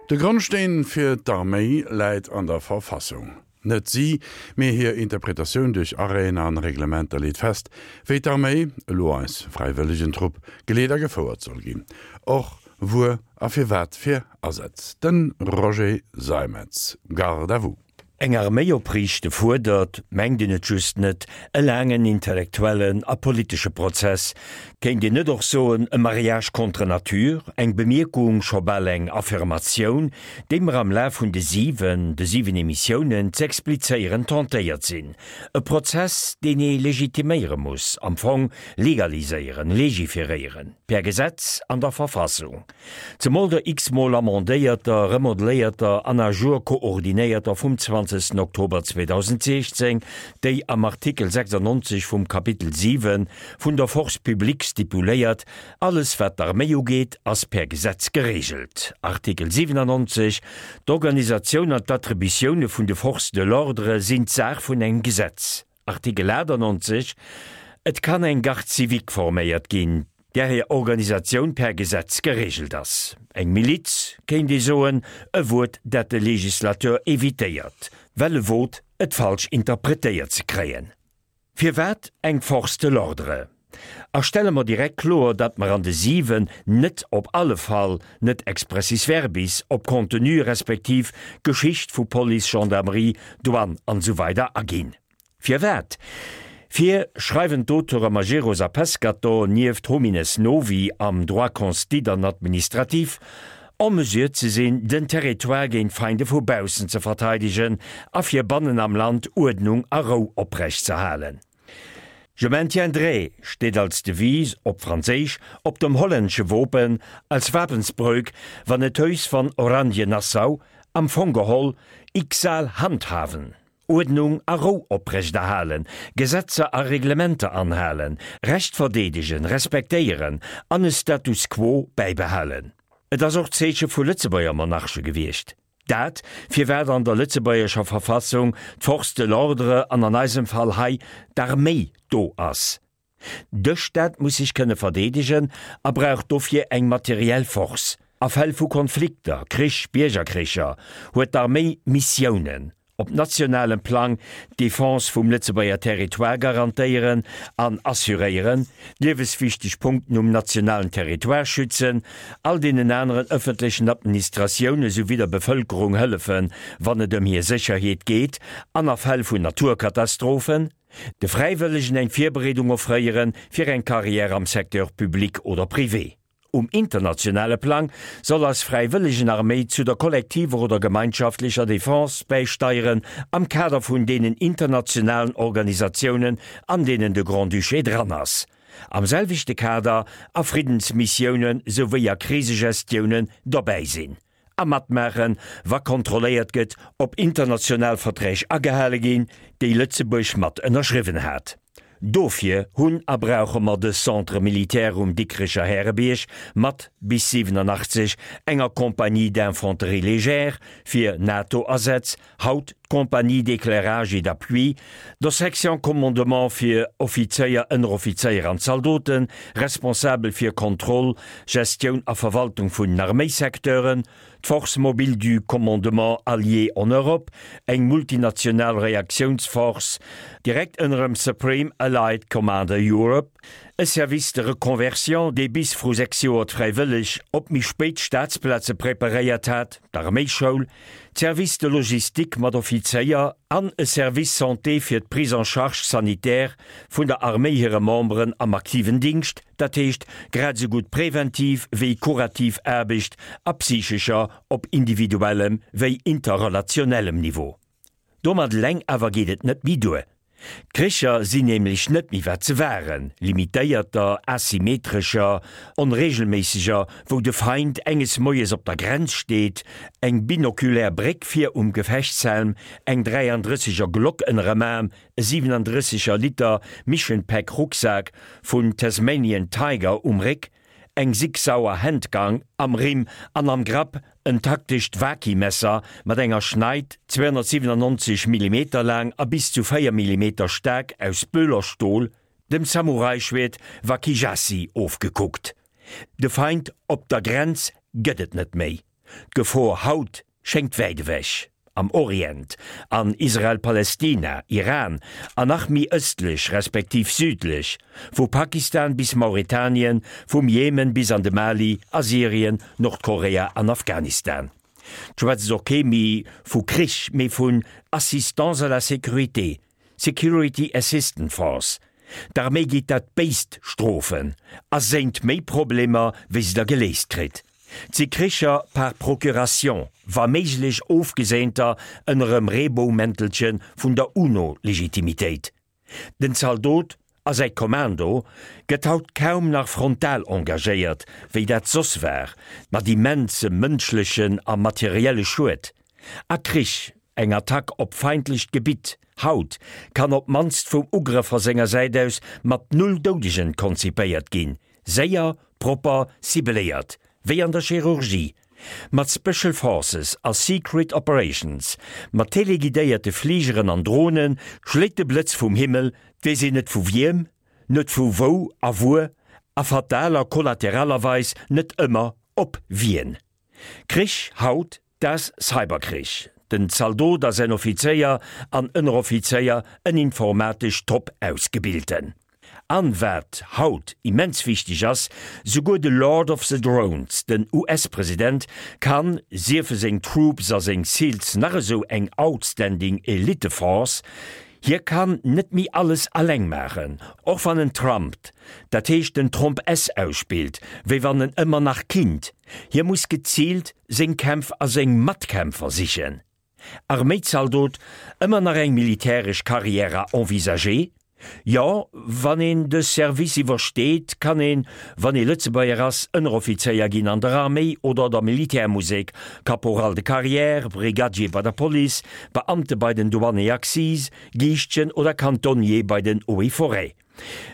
De Grondsteen fir d'Arméi läit an der Verfassung. Net si, mee hir Interpretatioun duerch Arrêten an Reglementer leet fest, wéi d'Arméi, elo eis Fräiwëllegentrupp, geleet a gefouert soll ginn. Och wuer a fir wat fir Asätz. De Roger Seimetz, Garde à vous. Eng Arméi opriichte fuerdert, mengt een et just net, e laangen intellektuellen a politesche Prozess, kéint een net och soen e Mariage contre nature, eng Bemierkung, scho bal eng Affirmatioun, déi mer am Laf vun de 7, de 7 Emissiounen z'explizéieren tentéiert sinn. E Prozess, deen ee legitiméiere muss, am Fong legaliséieren, legiferéieren, per Gesetz an der Verfassung. Zemol der x-mol amendéierter, remodeléierter an à jour koordinéierter vum 20 Oktober 2016, déi am Artikel 96 vum Kapitel 7 vun der Force publique stipuléiert, Alles wat d'Arméi ugeet, ass per Gesetz geregelt. Artikel 97, D'Organisatioun an d'Attributioune vun de Forces de l'ordre sinn d'Saach vun engem Gesetz. Artikel 98, Et kann eng Garde civique forméiert ginn, där hir Organisatioun per Gesetz geregelt ass. Eng Miliz, kéint ee soen, e Wuert, dat de Législateur évitéiert, well e wot, et falsch interpretéiert ze kréien. Firwat eng Force de l'ordre? A stelle mer direkt kloer, datt mer an de 7 net, op alle Fall net expressis verbis, op Contenu respektiv Geschicht vu Police, Gendarmerie, Douane an esou weider aginn. Firwat? Fir, schreiwen d'Auteure Majerus a Pescatore nieft Homines novi am Droit constit an administratif, en mesure ze sinn, den Territoire géint Feinde vu baussen ze verteidegen a fir bannen am Land Uerdnung a Rou oprechtzerhalen. Je maintiendrai steet als Devise, op Franséisch, op dem hollännesche Wopen als Wapensbreuk van het Huis van Oranje-Nassau, am Fong geholl, Ik zal handhaven, Uerdnung a Rou oprechterhalen, Gesetzer a Reglementer anhalen, Recht verdeedegen, respektéieren an e Status quo bäibehalen. Et ass och d'Zeeche vu Lëtzebuerger Monarche gewiescht. Dat, firwat an der lëtzebuergescher Verfassung d'Force de l'ordre an an eisem Fall hei d'Arméi do ass. De Staat muss sech kënne verdeedegen a brauch dofir eng materiell Force. A Fäll vu Konflikter, Krich, Biergerkricher, huet d'Arméi Missiounen. Op nationalem Plang d'Defense vum Lëtzebuerger Territoire garantéieren an assuréieren, d'lieweswichteg Punkten um nationalen Territoire schützen, all deenen aneren ëffentlechen Administratioune souwéi der Bevëlkerung hëllefen, wann et ëm hir Sécherheet geet an a Fäll vun Naturkatastrophen, de Fräiwëllegen eng Virbereedung offréieren fir eng Carrière am Secteur public oder privé. Um internationale Plang soll eis Fräiwëllegenarméi zu der kollektiver oder gemeinschaftlecher Defense bäisteieren am Kader vun deenen internationalen Organisatiounen, an deenen de Grand-Duché dran ass. Am selwechte Kader a Friddensmissiounen souwéi a Krisegestiounen dobäi sinn a matmaachen, wa kontrolléiert gëtt, ob international Verträg agehale ginn, déi Lëtzebuerg mat ënnerschriwwen hat. Dofir hunn a brauche mer de Centre militaire um Dikrecher Härebierg mat bis 87 enger Compagnie d'infanterie légère fir NATO-Asätz, haut d'Compagnie d'éclairage et d'appui, der Section commandement fir Offizéier, Ënneroffizéier an Zaldoten, responsabel fir Kontroll, Gestioun a Verwaltung vun den Arméisecteuren, d'Force mobile du commandement allié en Europe, eng multinational Reaktiounsforce, direkt ënnerem Supreme Allied Commander Europe, e Service de reconversion, dee bis vru 6 Joer d'Fräiwëlleg op méi spéit Staatsplaze preparéiert hat, d'Arméischoul, d'Service de logistique mat Offizéier an e Service santé fir d'Prise en charge sanitaire vun der Arméi hire Memberen am aktiven Dingscht, dat heescht grad esou gutt präventiv wéi kurativ Aarbecht a psychescher op individuellem wéi interrelationellem Niveau. Domat eleng awer geet et net méi duer. D'Kricher sinn nämlech net méi wat se waren, limitéierter, asymmetrescher, onregelméisseger, wou de Feind enges Moies op der Grenz steet, eng binokulär Bréck vir um Gefechtshelm, eng 33 er Glock ënnerem Aarm, e 37 er Liter Mission Pack Rucksak vun Tasmanian Tiger um Réck, eng Sig Sauer Handgang am Rimm an am Grapp en taktescht Waki-Messer mat enger Schneid 297 Millimeter laang a bis zu 4 Millimeter staark aus Böhlerstol, dem Samurai-Schwert Wakijashi ofgekuckt. De Feind op der Grenz gëtt et net méi. D'Gefor haut schéngt wäit ewech, am Orient, an Israel-Palestina, Iran an nach méi ëstlech respektiv südlech, vu Pakistan bis Mauretanien, vum Jemen bis an de Mali a Syrien, Nordkorea an Afghanistan. 't schwätzt och kee méi vu Krich, mee vun Assistance à la sécurité, Security Assistance Force. D'Arméi geet dat Béist strofen a séint méi Problemer, wéi se der geléist kritt. 't si Kricher par procuration, wa méiglech ofgeséinter ënner em Reebou-Mäntelche vun der UNO-Legitimitéit. Den Zaldot a säi Kommando gëtt haut kaum nach frontal engagéiert, wéi dat soss war, mat immensem mënschlechen a materielle Schued. A Krich, eng Attack op feindlecht Gebitt haut, kann op d'mannst vum Ugrëffer senger Säit aus mat null Doudegen konzipéiert ginn, séier, propper, cibeléiert, wéi an der Chirurgie. Mat Special Forces a Secret Operations, mat teleguidéierte Fligeren an Drone schléit de Blëtz vum Himmel, 't weess een net vu wiem, net vu wou a wuer, a fatal a kollateralerweis net ëmmer op wien. Krich haut, das Cyberkrich. Den Zaldot a säin Offizéier an Ënneroffizéier, en informatesch top ausgebilten. An wat haut immens wichteg ass, souguer de Lord of the Drones, den US-President, kann, siefe seng Troops a seng Seals nach esou eng outstanding Elite-Force, hie kann net méi alles alleng maachen, och wann en trumpt, dat heescht den Tromp S ausspillt, wéi wann en ëmmer nach kinnt, hie muss geziilt seng Kämpf a seng Matkämpfer sichen. Arméizaldot, ëmmer nach eng militäresch Carrière à envisager? Jo, wann een de Service iwwersteet, kann een, wann ee Lëtzebuerger ass, Ënneroffizéier ginn an der Arméi oder der Militärmusek, Caporal de carrière, Brigadier bei der Police, Beamte bei den Douanes et Accises, Giischtjen oder Cantonnier bei den Eaux et Forêts.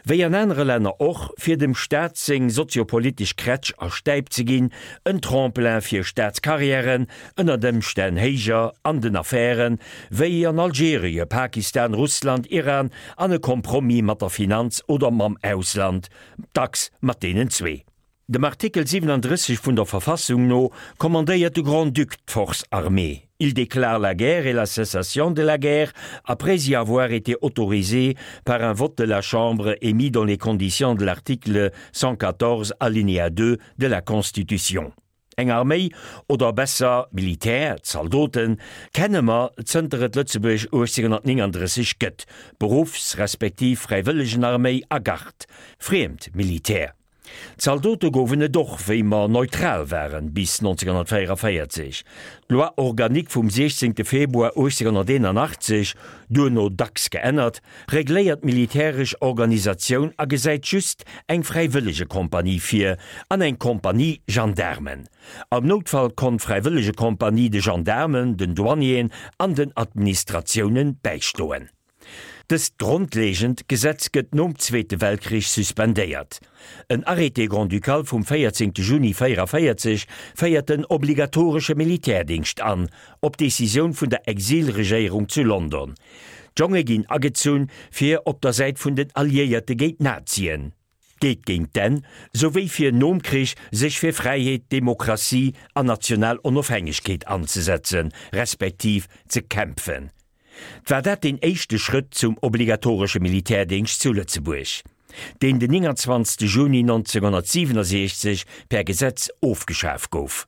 Wéi an anere Länner och, fir dem Staat seng soziopolitesch Krätsch a Stäip ze ginn, en Tremplin fir Staatskarriären, ënnert Ëmstänn héijer an den Affären, wéi an Algerie, Pakistan, Russland, Iran, an e Compromis mat der Finanz oder mam Ausland, dacks mat deenen zwee. Dem Artikel 37 vun der Verfassung no kommandéiert de Grand-Duc d'Force armée. Il déclare la guerre et la cessation de la guerre après y avoir été autorisé par un vote de la Chambre émis dans les conditions de l'article 114 alinéa 2 de la Constitution. Eng Arméi, oder besser Militär, Zaldoten, kenne mer zënter et Lëtzebuerg 1839 gëtt, Beruffs respektiv Fräiwëllegenarméi a Gard, friemt Militär. Zaldote gouwen et och, wéi mer neutral waren, bis 1944. D'Loi organique vum 16 Februar 1881, duerno dacks geännert, regléiert d'militäresch Organisatioun a gesäit just eng Fräiwëllegekompanie vir an eng Kompanie Gendaarmen. Am Noutfall konnt d'Fräiwëllegekompanie de Gendaarmen, den Douanieren an den Administratiounen bäistoen. Dëst grondlegend Gesetz gëtt nom Zweete Weltkrich suspendéiert. En Arrêté grand-ducal vum 14 Juni 44 féiert den obligatoresche Militärdingscht an, op Decisioun vun der Exilregéierung zu London. D'Jonge ginn agezunn, fir op der Säit vun den Alliéierte géint d'Nazien, geet géint d'Enn, souwéi fir nom Krich sech fir Fräiheet, Demokratie an national Onofhängegkeet anzesetzen, respektiv ze kämpfen. 't war dat deen éischte Schrëtt zum obligatoresche Militärdéngscht zu Lëtzebuerg, deen den 29 Juni 1967 per Gesetz ofgeschaf gouf.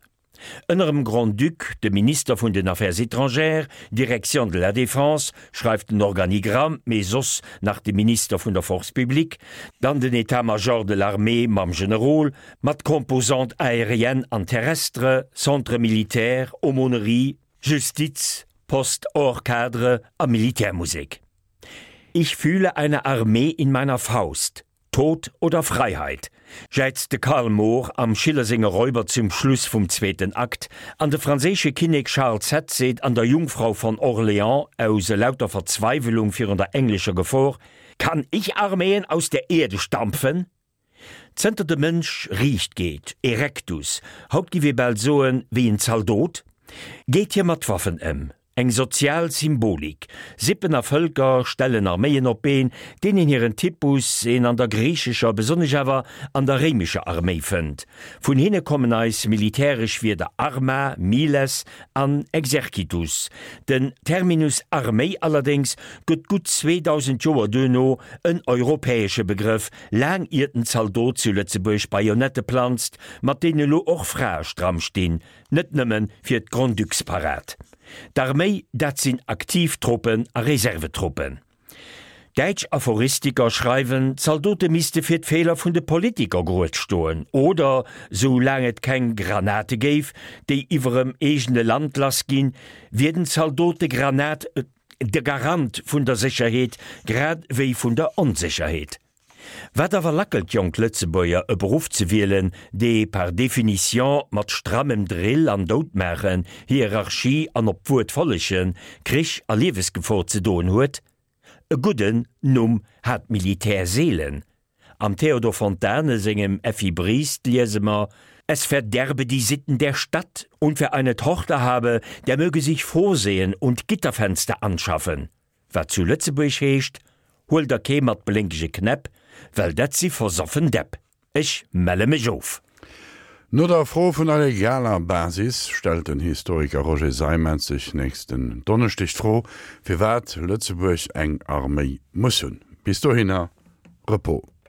Ënner em Grand-Duc, dem Minister vun den Affaires étrangères, Direction de la Défense, schreift den Organigramm, mee soss nach de Minister vun der Force publique, dann den État-major de l'armée mam Generol, mat Composante aérienne an terrestre, Centre militaire, Aumônerie, Justiz, Poste hors cadre a Militärmusek. Ich fühle eine Armee in meiner Faust, Tod oder Freiheit, jäizt de Karl Moor am Schiller senge Räuber zum Schluss vum zweeten Akt, an de franséische Kinnek Charles X seet an der Jungfrau von Orléans aus elauter Verzweiwelung virun der englescher Gefor, Kann ich Armeen aus der Erde stampfen? Zënter de Mënsch riicht geet, erectus, haut giff ee bal soen, wéi en Zaldot, geet hie mat Waffen ëm. Eng sozial Symbolik. Sippen a Vëlker stellen Arméien op d'Been, deenen hiren Typus een an der griichescher, besonnesch awer an der réimescher Arméi fënnt. Vun hinne kommen eis militäresch Wierder arma, miles an exercitus. Den Terminus Arméi allerdéngs gëtt gutt 2000 Joer duerno en europäesche Begrëff, laang iert den Zaldot zu Lëtzebuerg Bajonette planzt, mat deene lo och Frae stramm stinn, Net nëmme fir d'Grand-Ducs-Parad. D'Arméi, dat sinn aktiv Truppen a Reservetruppen. Däitsch Aphoristiker schreiwen, d'Zaldote misste fir d'Feeler vun de Politiker grued stoen, oder, sou laang et keng Granate géif, déi iwwerem eegene Land lass ginn, wier den Zaldot de Granat, de Garant vun der Sécherheet, grad wéi vun der Onsécherheet. Wat awer lackelt jonk Lëtzebuerger e Beruff ze wielen, dee par définition mat strammem Drill an Doudmaachen, Hierarchie an op d'Wuert follegen, Krich a Liewesgefor ze doen huet? E gudden Numm hat d'Militär seelen. Am Theodor Fontane sengem Effi Briest liese mer, Es verderbe die Sitten der Stadt, und wer eine Tochter habe, der möge sich vorsehen und Gitterfenster anschaffen. Wat zu Lëtzebuerg heescht, Huel der kee mat blénkege Knäpp, well dat si versoffen Däpp. Ech melle mech of. No der Fro vun der legaler Basis stellt den Historiker Roger Seimetz sech nächsten Donneschdeg d'Fro, firwat Lëtzebuerg eng Arméi muss hunn. Bis dohinner, Repos.